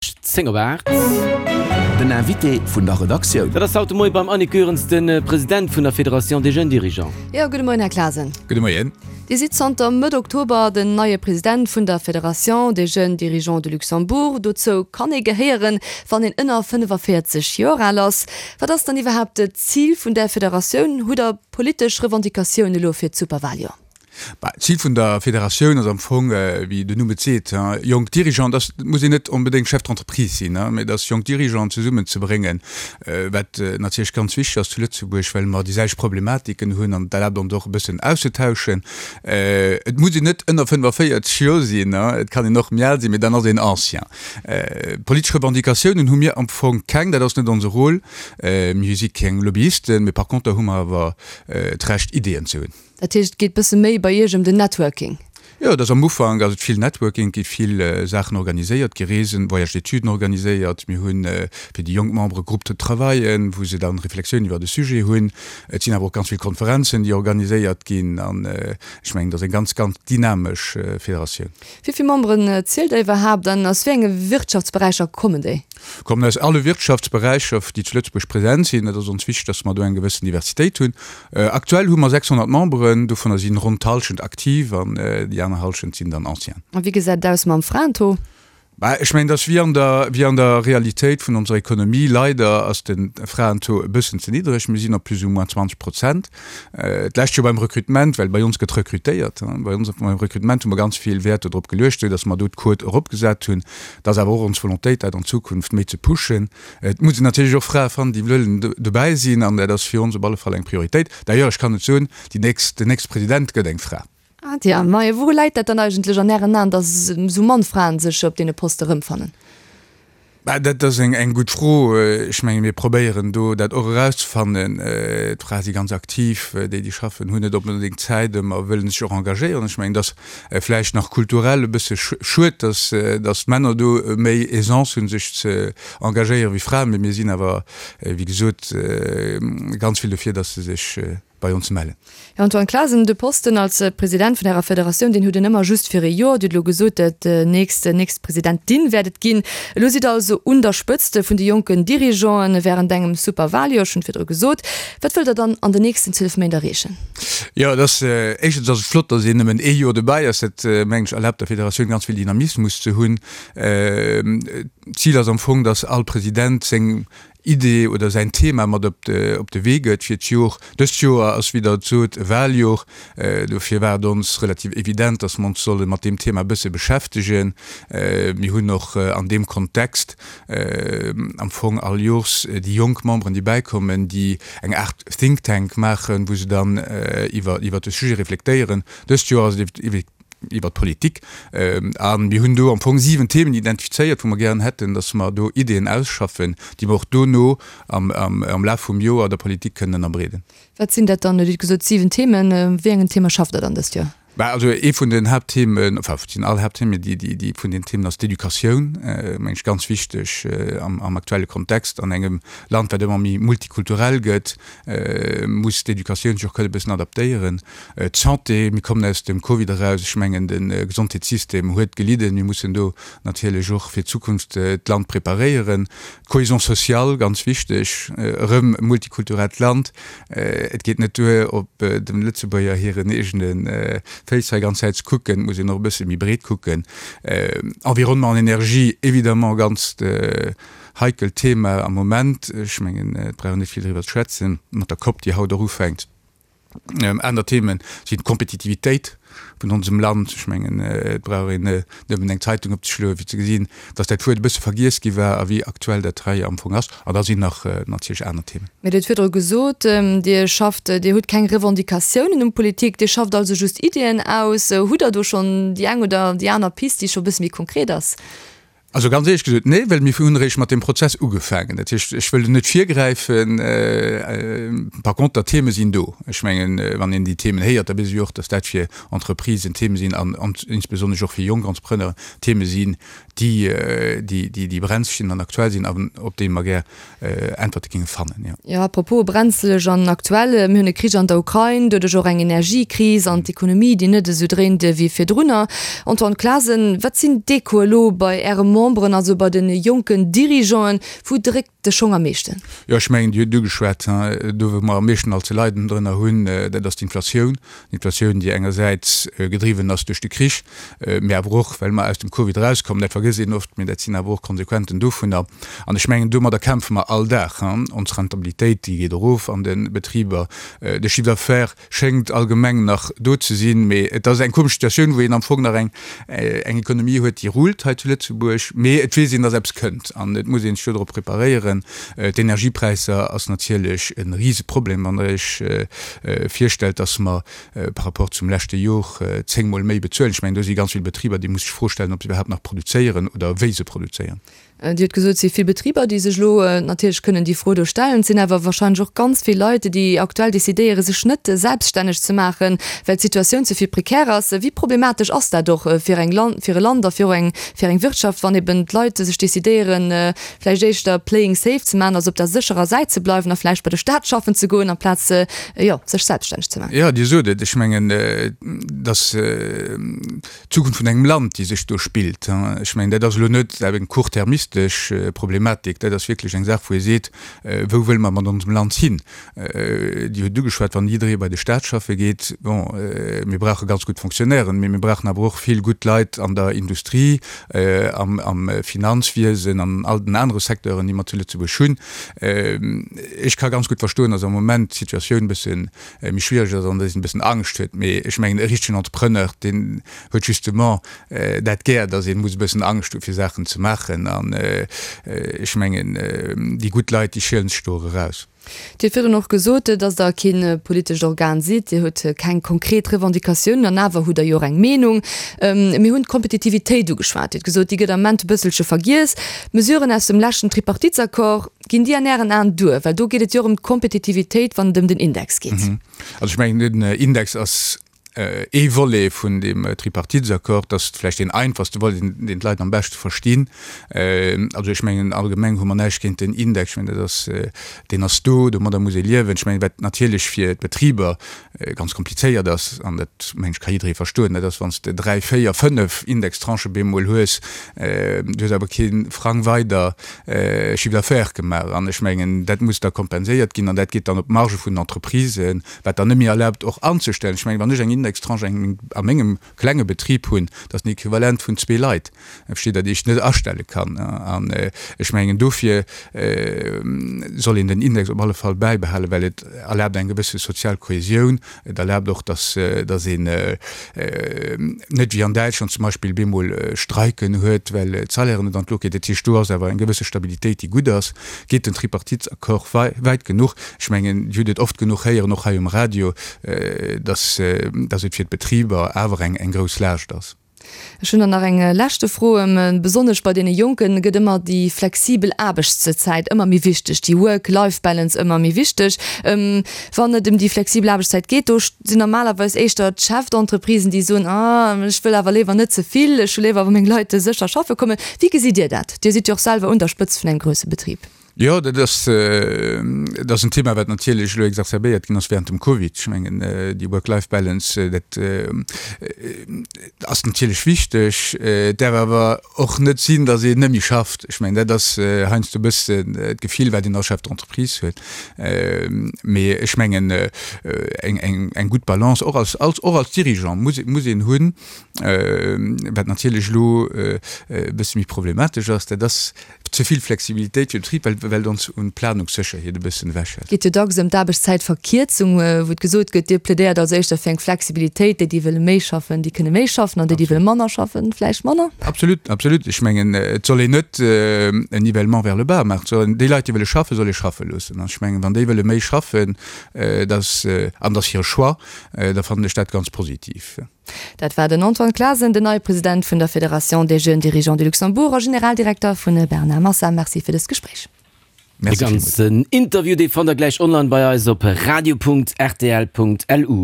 10 op 8. Den Invité vun der Redaktioun. Dat ass haut de Moie beim Annick Goerens, de President vun der Fédération des Jeunes Dirigeants. Jo, gudde Moien, Här Clasen. Gudde Moien. Dir sidd zanter Mëtt Oktober den neie President vun der Fédération des Jeunes Dirigeants de Luxembourg. Dozou kann ee gehéieren, wann een ënner 45 Joer al ass. Wat ass dann iwwerhaapt d'Zil vun där Federatioun? Hutt Der politesch Revendicatioun elo fir d'Superwaljoer? Bah, d'Zil vun der Federatioun ass am Fong, wéi den Numm et seet, jonk Dirigeanten, dass, et muss een net onbedéngt Chef d'entreprise sinn, mä dass jonk Dirigeanten zesummenzebréngen, wat natierlech ganz wichteg ass zu Lëtzebuerg, well mer déi selwecht Problematiken hunn an et erlaabt ons och e bëssen auszetauschen. Et muss een net ënner 45 Joer sinn, et kann een och méi al sinn, mä dann ass een Ancien. Politesch Revendicatiounen hu mir am Fong keng, dat ass net onse Rôle. Mir si keng Lobbyisten, mä par conter hu mer awer d'Recht Ideeën ze hunn. Dat heescht, et geet bësse méi bei Iech ëm den Networking? Jo, et ass am Ufank ass et vill Networking, et gi vill Saachen organiséiert, et gi Reesen, Voyages d'études organiséiert, mir hu fir déi jonk Membere Groupes de travaillen, wou se dann Reflexioun iwwert e Sujet hunn. Et sinn awer och ganz vill Konferenzen, déi organiséiert ginn an ech mengen, et ass eng ganz, ganz dynamesch Federatioun. Wéi vill Memberen zielt Der iwwerhaapt an aus wéi enge Wirtschaftsberäicher kommen déi? Kommen aus alle Wirtschaftsberäicher, déi zu Lëtzebuerg present sinn. Et ass ons wichteg, dass mer do eng gewëssen Diversitéit hunn. Aktuell hu mer 600 Memberen, dovunner sinn ronn d'Hallschent aktiv an déi aner Hallschent sinn dann Anciens. A wéi gesäit et aus mam Fraentaux? Bah, ech mengen, et ass wéi an der, wéi an der Realitéit vun onser Ekonomie, leider ass de Fraentaux e bëssen ze niddreg. Mir sinn op plus ou moins 20 Prozent. D'lescht Joer beim Recrutement, well bei ons gëtt rekrutéiert, bei ons beim Recrutement hu mer ganz vill Wäert dodrop geluecht, esou datt mer do d'Quote eropgesat hunn. Et ass awer och ons Volontéit, dat an Zukunft méi ze pushen. Et muss een natierlech och Frae fannen, déi wëllen dobäi sinn, an dat ass fir ons op alle Fall eng Prioritéit. D'ailleurs, ech kann et soen, déi nächst, den nächste President gëtt eng Fra. Ah tja, majo, wouru läit dat dann eigentlech an Ären Aen, datt esou mann Fraen sech op deene Poste erëmfannen? Bah, dat ass eng, eng gutt Fro. Ech menge mir probéieren do dat och erauszefannen. D'Frae si ganz aktiv, déi déi schaffen hunn net onbedéngt Zäit ëmmer, wëllen sech och engagéieren. Ech mengen, et ass vläicht nach kulturell e bësse schued, datt, datt d'Männer do méi Aisance hunn sech ze engagéieren wéi Fraen. Mee mir sinn awer, wéi gesot, ganz vill dofir, datt se sech bei ons mellen. Här Antoine Clasen, de Posten als President vun Ärer Federatioun, deen hutt en ëmmer just fir e Joer. Dir hutt elo gesot, dat nächst, nächst Presidentin wäert et ginn. Elo sidd Der also un der Spëtzt vun de jonken Dirigeanten während engem Superwaljoer, ech hunn et virdru gesot. Wat wëllt Der dann an den nächsten 12 Méint erreechen? Jo, et ass, éischtens ass et flott, datt een nëmmen ee Joer dobäi ass. Dat, mengen ech, erlaabt der Federatioun ganz vill Dynamismus ze hunn. D'Zil ass am Fong, datt all President seng Idee oder säin Thema mat op de op de Wee gëtt fir d'Jor. Dëst Joer ass, wéi Der et sot, e Waljor. Dofir war et ons relativ evident, dass mer ons solle mat deem Thema e bësse beschäftegen. Mir hunn och an deem Kontext am Fong all Jors déi jonk Memberen, déi bäikommen, déi eng Aart Think Tank maachen, wou se dann iwwer iwwer de Sujet reflektéieren. Dëst Joer ass et iwwer d'Politik. A mir hunn do am Fong 7 Themen identifizéiert, wou mer gären hätten, dass mer do Ideeën ausschaffen, déi mer och dono am Laf vum Joer der Politik kënnen ënnerbreeden. Wat sinn dat dann? Dir hutt gesot 7 Themen. Wéi engen Theme schafft Der dann dëst Joer? Bah, also ee vun den Haaptthemen, enfin et sinn all Haaptthemen, déi, déi, déi vun den Themen ass d'Educatioun, meng ech ganz wichteg am aktuelle Kontext an engem Land, wat ëmmer méi multikulturell gëtt, muss d'Educatioun sech och kënne bëssen adaptéieren. D'Santé, mir kommen aus dem Covid eraus, ech mengen de Gesondheetssystem huet gelidden, mir mussen do natierlech och fir d'Zukunft d'Land preparéieren. D'Cohésion sociale, ganz wichteg, erëm e multikulturellt Land, et geet net duer op dem Lëtzebuerger hiren eegene Féiss hei ganz Zäit ze kucken, et muss een och e bësse méi breet kucken. Environnement an Energie, évidemment ganz Heikelt Thema am Moment. Ech mengen, et brauch een net vill driwwer ze schwätzen, mat der Cop, déi haut och ufänkt. Aner Themen sinn d'Kompetitivitéit vun onsem Land. Ech mengen, et brauch een nëmmen eng Zeitung opzeschloen, fir ze gesinn, dass dat Wuert e bësse vergiess gi war a wéi aktuell dat hei am Fong ass. An da sinn nach natierlech aner Themen. Mee Dir hutt virdru gesot, Dir schafft, Dir hutt keng Revendicatiounen un d'Politik, Dir schafft also just Iddien aus. Hutt Der do schonn déi eng oder déi aner Pist, déi scho e bësse méi konkret ass? Also ganz éierlech gesot, nee, well mir hunn eréischt mat deem Prozess ugefaangen. Dat heescht, ech wëll do net virgräifen. Par conter, d'Theme sinn do. Ech mengen, wann een déi Themen héiert, da weess ee jo och, datt dat fir Entreprisen Theme sinn an insbesonnesch och fir jonk Entrepreneuren Theme sinn, déi, déi, déi brenzeg sinn an aktuell sinn an op déi mer gär Äntwerte géinge fannen, jo. Jo, à propos brenzeleg an aktuell, mir hunn e Krich an der Ukrain, doduerch och eng Energiekris an d'Ekonomie, déi net esou dréint ewéi virdrunner. Antoine Clasen, wat sinn d'Echoe elo bei Äre Memberen, also bei de jonken Dirigeanten? Wou dréckt de Schong am meeschten? Jo, ech mengen, Dir hutt et ugeschwat, do wou mer am meeschten alt ze leiden drënner hunn, dat ass d'Inflatioun. D'Inflatioun, déi engersäits gedriwwen ass duerch de Krich, mee awer och, well mer aus dem Covid erauskommen. Dat vergësst een oft, mee dat sinn awer och Konsequenten dovunner. An ech mengen, domadder kämpfe mer all Dag. Ons Rentabilitéit, déi geet erof an de Betriber. De Chiffre d'affaires schéngt allgemeng nach do ze sinn, mee et ass eng komesch Situatioun, wou een am Fong nach eng eng Ekonomie huet, déi rullt hei zu Lëtzebuerg, mee et weess een, datt eppes kënnt an et muss ee sech dodrop preparéieren. D'Energiepräisser ass natierlech e Riseproblem, wann Der Iech virstellt, datt mer par rapport zum leschte Jor zéngmol méi bezuelen. Ech mengen, do si ganz vill Betriber, déi musse sech d'Fro stellen, ob se iwwerhaapt nach produzéieren oder wéi se produzéieren. Dir hutt gesot, et si vill Betriber, déi sech elo natierlech kënnen déi Fro do stellen. Et sinn awer wahrscheinlech och ganz vill Leit, déi aktuell decidéieren, sech net selbststänneg ze maachen, well d'Situatioun ze vill prekär ass. Wéi problematesch ass dat och fir eng Land, fir e Land a fir och eng, fir eng Wirtschaft, wann eben d'Leit sech decidéieren, vläicht éischter playing safe ze maachen, also op der sécherer Säit ze bleiwen a vläicht bei de Staat schaffen ze goen, amplaz, jo, sech selbststänneg ze maachen? Jo, Dir sot et. Ech mengen, dass. D'Zukunft vun engem Land, déi sech do spillt. Ech mengen, dat ass elo net eng court-termistesch Problematik, dat ass wierklech eng Saach, wou ee seet, Wou wëlle mer mat onsem Land hin? Dir hutt et ugeschwat, wann jidderee bei de Staat schaffe geet, bon, mir brauche ganz gutt Fonctionnairen, mee mir brauchen awer och vill gutt Leit an der Industrie, am Finanzwiesen, an all den anere Secteuren, déi mer zu Lëtzebuerg hunn. Ech ka ganz gutt verstoen, datt am Moment d'Situatioun e bësse méi schwiereg ass an dass een e bëssen Angscht huet. Mee ech mengen, e richtegen Entrepreneur, deen huet justement dat gär, dass ee muss e bëssen Angscht hu fir Saachen ze maachen. An ech mengen, déi gutt Leit, déi schielen sech do och eraus. Dir hutt virdrun och gesot, dass Der kee politescht Organ sidd. Dir hutt keng konkret Revendicatiounen an awer hutt Der jo och eng Meenung. Mir hunn d'Kompetitivitéit ugeschwat. Dir hutt gesot, déi gëtt am Ament e bësselche vergiess. D'Mesuren aus dem leschten Tripartitesaccord, Ginn déi an Ären Aen duer? Well do geet et jo och ëm d'Kompetitivitéit, wann et ëm den Index geet. Also ech mengen, den Index ass ee Volet vun deem Tripartitesaccord. Dat ass vläicht deen einfachste Volet, deen d'Leit am beschte verstinn. Also ech mengen, allgemeng hu mer näischt géint den Index. Ech mengen, dat ass, deen ass do, domadder muss ee liewen. Ech mengen, wat natierlech fir d'Betriber ganz komplizéiert ass, an dat mengen ech ka jidderee verstoen, dat ass wann s de dräi, véier, fënnef Indextranchë bemol hues, du hues awer kee Frang weider Chiffre d'affaires gemaach. An ech mengen, dat muss da kompenséiert ginn an dat geet dann op d'Marge vun den Entreprisen, wat dann net méi erlaabt och anzestellen. Ech mengen, wann ech eng Indextranche a mengem klenge Betrib hunn, dat ass den Equivalent vun zwee Leit, versteet Der, déi ech net astelle kann. An ech mengen, dofir soll een den Index op alle Fall bäibehalen, well et erlaabt eng gewësse sozial Kohäsioun. Et erlaabt och, dass dass een net wéi an Däitschland zum Beispill bemol Streiken huet, well d'Salairen net an d'Luucht ginn. Dat heescht, do ass awer eng gewësse Stabilitéit, déi gutt ass. Geet den Tripartitesaccord wäit genuch? Ech mengen, Dir hutt et oft genuch héieren, och hei um Radio, dass dass et fir d'Betriber awer eng eng grouss Laascht ass. Ech hunn dann nach eng leschte Fro. Besonnesch bei deene Jonken gëtt ëmmer déi flexibel Aarbechtszäit ëmmer méi wichteg, déi Work-Life-Balance ëmmer méi wichteg. Wann et ëm déi flexibel Aarbechtszäit geet, do sinn normalerweis éischter d'Chef-d'entreprisen, déi soen, ah, ech wëll awer léiwer net ze vill, ech hu léiwer, wa meng Leit sécher schaffe kommen. Wéi gesitt Dir dat? Dir sidd jo och selwer un der Spëtzt vun engem grousse Betrib. Jo, dat ass, dat ass en Thema, wat natierlech elo exacerbéiert ginn ass während dem Covid. Ech mengen, déi Work-Life-Balance, dat ass natierlech wichteg. Et däerf awer och net sinn, datt een net méi schafft. Ech mengen, dat ass heiansdo e bëssen d'Gefill, wat een als Chef d'entreprise huet. Mee ech mengen, eng, eng, eng gutt Balance, och als, als, och als Dirigeant muss, muss een hunn. Wat natierlech elo e bësse méi problematesch ass, dat ass, Ze vill Flexibilitéit fir de Betrib, well well ons un Planungssécherheet e bëssen ewechhält. Et geet jo dacks ëm d'Aarbechtszäitverkierzung, wou et gesot gëtt, Dir plädéiert also éischter fir eng Flexibilitéit, déi, déi wëlle méi schaffen, déi kënne méi schaffen an déi, déi wëlle manner schaffen, vläicht manner. Absolut, absolut. Ech mengen, et soll een net en Nivellement vers le bas maachen. Et soll een déi Leit, déi wëlle schaffen, soll ee schaffe loossen. An ech mengen, wann déi wëlle méi schaffen, dass, an dat ass hire Choix, da fannen ech dat ganz positiv. Dat war den Antoine Clasen, den neie President vun der Fédération des Jeunes Dirigeants du Luxembourg a Generaldirekter vun Bernard Massa. Merci fir dëst Gespréich. De ganzen Interview dee fannt der gläich online bei eis op radio.rtl.lu.